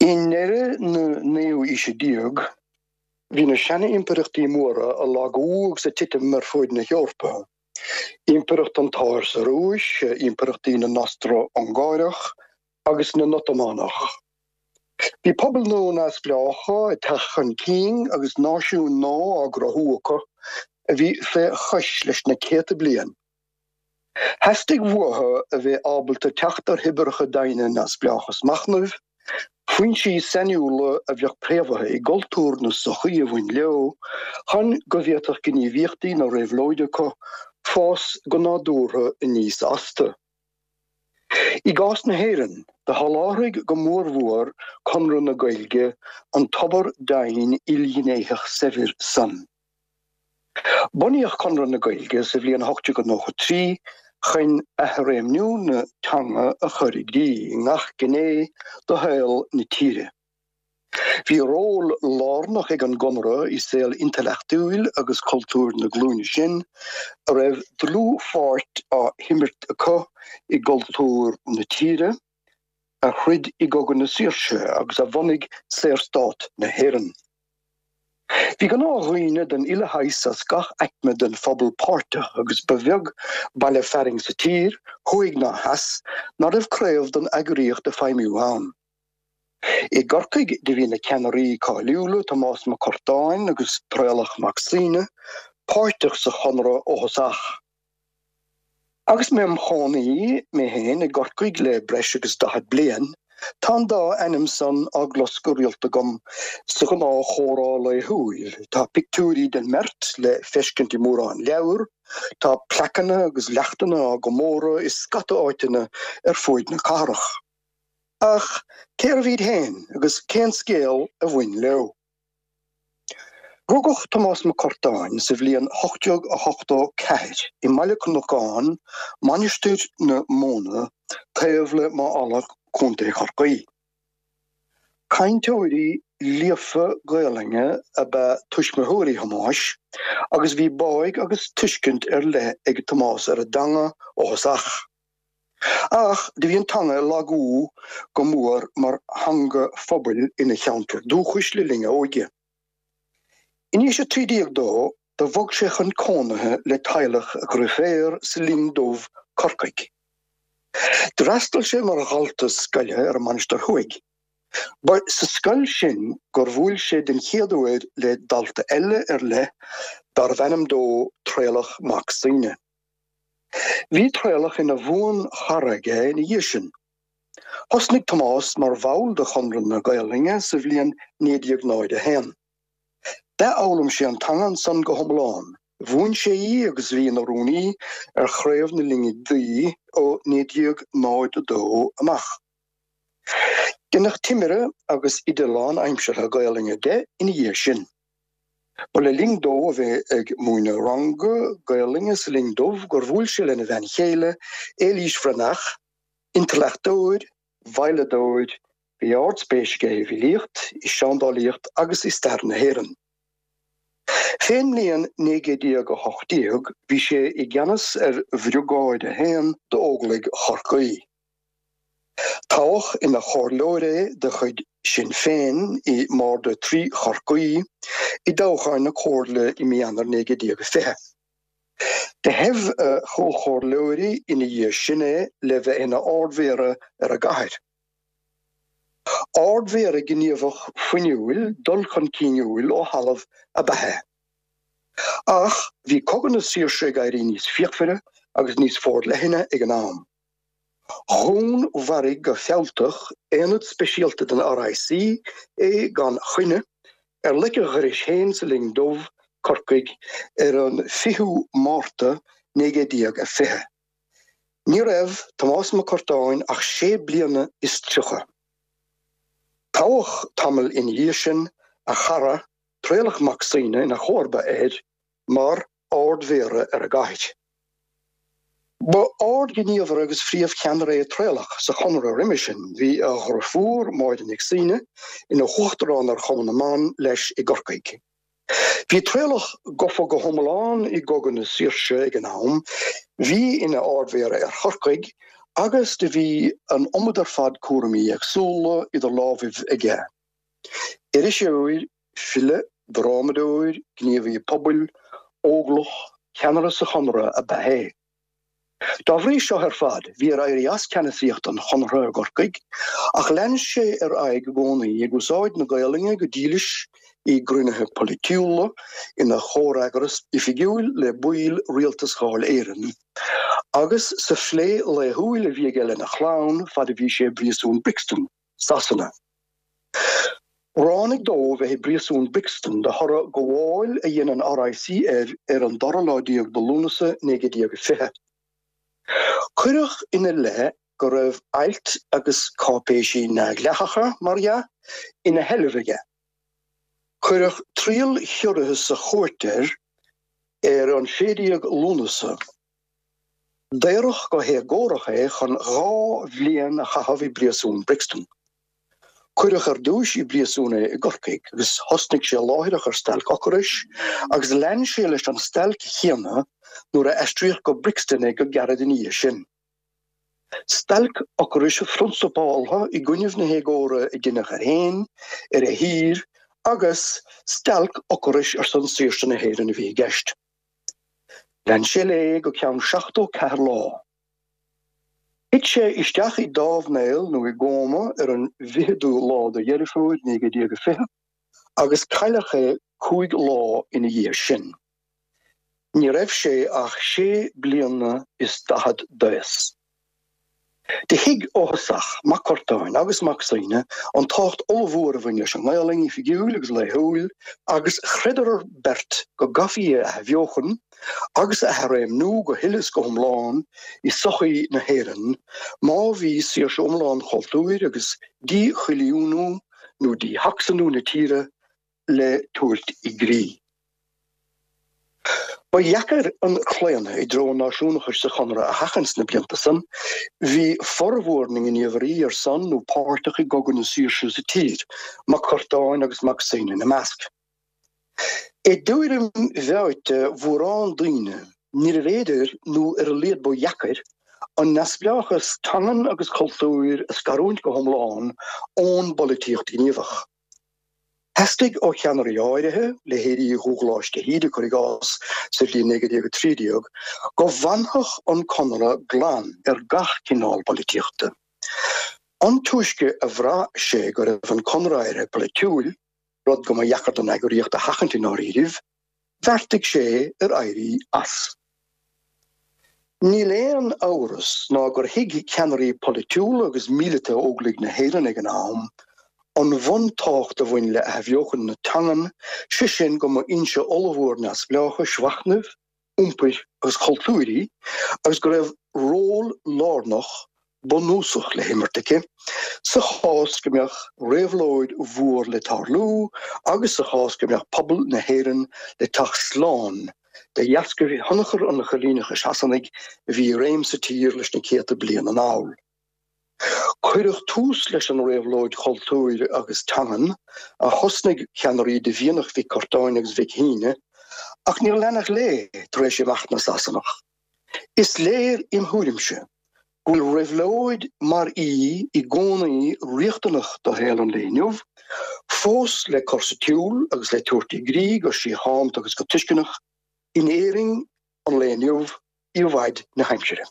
I ndeireadh na naoú aoise déag, bhí na seana-impireachtaí móra ag lagú agus ag titim ar fuaid na hEorpa, Impireacht an tSáir sa Rúis, impireachtaí na nOstro-Ungáireach agus na nOtamánach. Bhí pobail nua neamhspleácha ag teacht chun cinn agus náisiúin nua á gcruthú acu a bhí fé chois leis na céadta bliain. Theastaigh uathu a bheith ábalta teacht ar thoibreacha doimhne neamhspleáchas machnaimh, foinsí sainiúla a bheadh préamhaithe i gcultúr na sochaí a bhain leo, chun go bhféadfadh gníomhaíochtaí na réabhlóide acu fás go nádúrtha aníos astu. I gcás na hÉireann, do sholáthraigh go mórmhór Conradh na Gaeilge an tobar doimhin ilghnéitheach saibhir san. Bunaíodh Conradh na Gaeilge sa bhliain 1893 chun athréimniú na teanga a chur i gcrích i ngach gné de shaol na tíre. Bhí ról lárnach ag an gConradh i saol intleachtúil agus cultúir na glúine sin a raibh dlúthpháirt á himirt acu i gcultúr na tíre, a throid i gCogadh na Saoirse agus a bhunaigh Saorstát na hÉireann. Bhí gnáthdhaoine den uile shaghas as gach aicme den phobal páirteach agus ba bheag baile fearainn sa tír, thuaidh ná theas, ná raibh craobh den eagraíocht ag feidhmiú ann. I gCorcaigh do bhí na ceannairí cáiliúla Tomás Mac Curtáin agus Traolach Mac Suibhne páirteach sa Chonradh ó thosach. Agus mé im chónaí mé féin i gCorcaigh le breis agus 40 bliain, tá an dá ainm san á gclos go rialta agam sa ghnáth-chomhrá laethúil. Tá pictiúirí den mbeirt le feiscint i mórán leabhar, tá plaiceanna agus leachtanna á gcomóradh i scata áiteanna ar fuaid na cathrach. Ach cérbh iad féin agus cén scéal a bhain leo? Rugadh Tomás Mac Curtáin sa bhliain 1884 i mBaile Cnocáin, Mainistir na Móna, taobh le Maigh Ealla, Co. Chorcaí. Cainteoirí líofa Gaelainne ab ea tuismitheoirí Thomáis agus bhí báidh agus tuiscint ar leith ag Tomás ar an dteanga ó thosach. Ach do bhí an teanga ag lagú go mór mar theanga phobail ina cheantar dúchais le linn a óige. In aois 13 dó, do bhog sé chun cónaithe le teaghlach a dhrioféar sa Linn Dubh, Corcaigh. D'fhreastail sé mar dhalta scoile ar an Mainistir Thuaidh. Ba sa scoil sin gur bhuail sé den chéad uair le dalta eile ar leith darbh ainm dó Traolach Mac Suibhne. Bhí Traolach ina bhuan-chara aige ina dhiaidh sin. Thosnaigh Tomás mar bhall de Chonradh na Gaelainne sa bhliain 1901. D'athfhoghlaim sé an teanga ansan go hiomlán, mhúin sé í agus bhí ina rúnaí ar chraobh na Linne Duibhe ó 1902 amach. Deineadh timire agus oide lánaimseartha Gaelainne de ina dhiaidh sin. Ba le linn dó a bheith ag múineadh ranga Gaelainne sa Linn Dubh gur bhuail sé lena bhean chéile, Éilís Bhreathnach, intleachtóir, veidhleadóir, bhí ardspéis aige i bhfilíocht, i seandálaíocht agus i stair na hÉireann. Fén mbliain 1918 bhí sé i gceannas ar Bhriogáid 1 d'Óglaigh Chorcaí. Toghadh ina chomhairleoir é de chuid Sinn Féin i mBarda 3 Chorcaí i dtoghcháin na Comhairle i mí Eanáir 1920. Do thoibh a chomhchomhairleoirí ina dhiaidh sin é le bheith ina Ard-Mhéara ar an gcathair. Ard-Mhéara gníomhach fuinniúil dul chun cinniúil ó thalamh ab ea é. Ach bhí Cogadh na Saoirse ag éirí níos fíochmhaire agus níos forleithne ag an am. Dhúnmharaigh go fealltach aonad speisialta den RIC é gan choinne ar leic a dhorais féin sa Linn Dubh, Corcaigh, ar an 20ú Márta 1920. Ní raibh Tomás Mac Curtáin ach sé bliana is 30. Toghadh tamall ina dhiaidh sin a chara Traolach Mac Suibhne ina chomharba air mar Ard-Mhéara ar an gcathair. Ba ardghníomhaire agus phríomhcheannaire é Traolach sa Chonradh roimhe sin. Bhí a dhriofúr, Máire Nic Suibhne, ina huachtarán ar Chumann na mBan leis i gCorcaigh. Bhí Traolach gafa go hiomlán i gCogadh na Saoirse ag an am, bhí ina Ard-Mhéara ar Chorcaigh. Agus do bhí an iomad ar fad cúraimí éagsúla idir lámhaibh aige. Iriseoir, file, drámadóir, gníomhaí pobail, óglach, ceannaire sa Chonradh ab ea é. Dá bhrí seo ar fad, bhí air éirí as ceannasaíocht an Chonartha i gCorcaigh, ach lean sé ar aghaidh i gcónaí ag úsáid na Gaolainne go dílis i gcruinnithe polaitiúla, ina chomhfhreagras oifigiúil le baill Rialtas Dháil Éireann, agus sa phlé laethúil a bhí aige lena chlann fad a bhí sé i bpríosún Brixton, Sasana. Ráinig dó bheith i bpríosún Brixton de thoradh gabháil a dhein an RIC air ar an dara lá déag de Lúnasa 1920. Cuireadh ina leith go raibh ailt agus cáipéisí neamhdhleathacha, mar dhea, ina sheilbh aige. Cuireadh triail chiorraithe sa chúirt air ar an 16 Lúnasa. Daoradh go héagórach é chun 2 bhliain a chaitheamh i bpríosún Brixton. Cuireadh ar dtúis i bpríosún é i gCorcaigh agus thosnaigh sé láithreach ar stailc ocrais agus lean sé leis an stailc chéanna nuair a aistríodh go Brixton é go gairid ina dhiaidh sin. Stailc ocrais phrionsabáltha i gcoinnibh na héagóra a deineadh air féin, ar a thír agus stailc ocrais ar son saoirse na hÉireann a bhí i gceist. Lean sé léi go ceann 74 lá. Thit sé isteach i dtámhnéal nó i gcóma ar an bhficheadú lá de Dheireadh Fómhair 1920 agus cailleadh é 5 lá ina dhiaidh sin. Ní raibh sé ach sé bliana is daichead d'aos. Do thuig ó thosach Mac Curtáin agus Mac Suibhne an tábhacht ollmhór a bhain leis an nGaolainn oifigiúil agus laethúil agus chreideadar beirt go gcaithfí í a athbheochan agus a athréimniú go huile is go hiomlán i sochaí na hÉireann má bhí saoirse iomlán chultúir agus díchoilíniú nó díShacsanú na tíre le tabhairt i gcrích. Ba dheacair an claonadh i dtreo an náisiúnachais sa Chonradh a sheachaint sna blianta san. Bhí formhór na ngníomhairí ar son nó páirteach i gCogadh na Saoirse sa tír, Mac Curtáin agus Mac Suibhne ina measc. I dtuairim mheáite mhórán daoine, níorbh fhéidir, nó ar a laghad ba dheacair, an neamhspleáchas teangan agus cultúir a scarúint go hiomlán ón bpolaitíocht ghníomhach. Theastaigh ó cheannairí áirithe, leithéidí Dhubhghláis de hÍde, cuir i gcás, sa bhliain 1913, go bhfanfadh an Conradh glan ar gach cineál polaitíochta. An túisce a bhraith sé go raibh an Conradh éirithe polaitiúil, rud go mba dheacair don eagraíocht a sheachaint i ndáiríribh, bheartaigh sé ar éirí as. Níl aon amhras ná gur thuig ceannairí polaitiúla agus míleata Óglaigh na hÉireann ag an am an bhuntábhacht a bhain le athbheochan na teangan, sé sin go mba fhoinse ollmhór neamhspleáchais mhachnaimh, iompair agus cultúir í agus go raibh ról lárnach bunúsach le himirt aici sa chás go mbeadh réabhlóid mhór le tarlú agus sa chás go mbeadh pobal na hÉireann le teacht slán de dheascaibh thionchar an choilíneachais Shasanaigh a bhí i réim sa tír leis na céadta bliain anall. Cuireadh tús leis an réabhlóid chultúir agus teangan a thosnaigh ceannairí de mhianach Mhic Curtáin agus Mhic Shuibhne ach níor leanadh léi tar éis imeacht na Sasanach. Is léir im thuairimse go bhfuil réabhlóid mar í i gcónaí riachtanach do shaol an lae inniu, fós le cur sa tsiúl agus le tabhairt i gcrích go síochánta agus go tuisceanach in Éirinn an lae inniu i bhfaid na haimsire.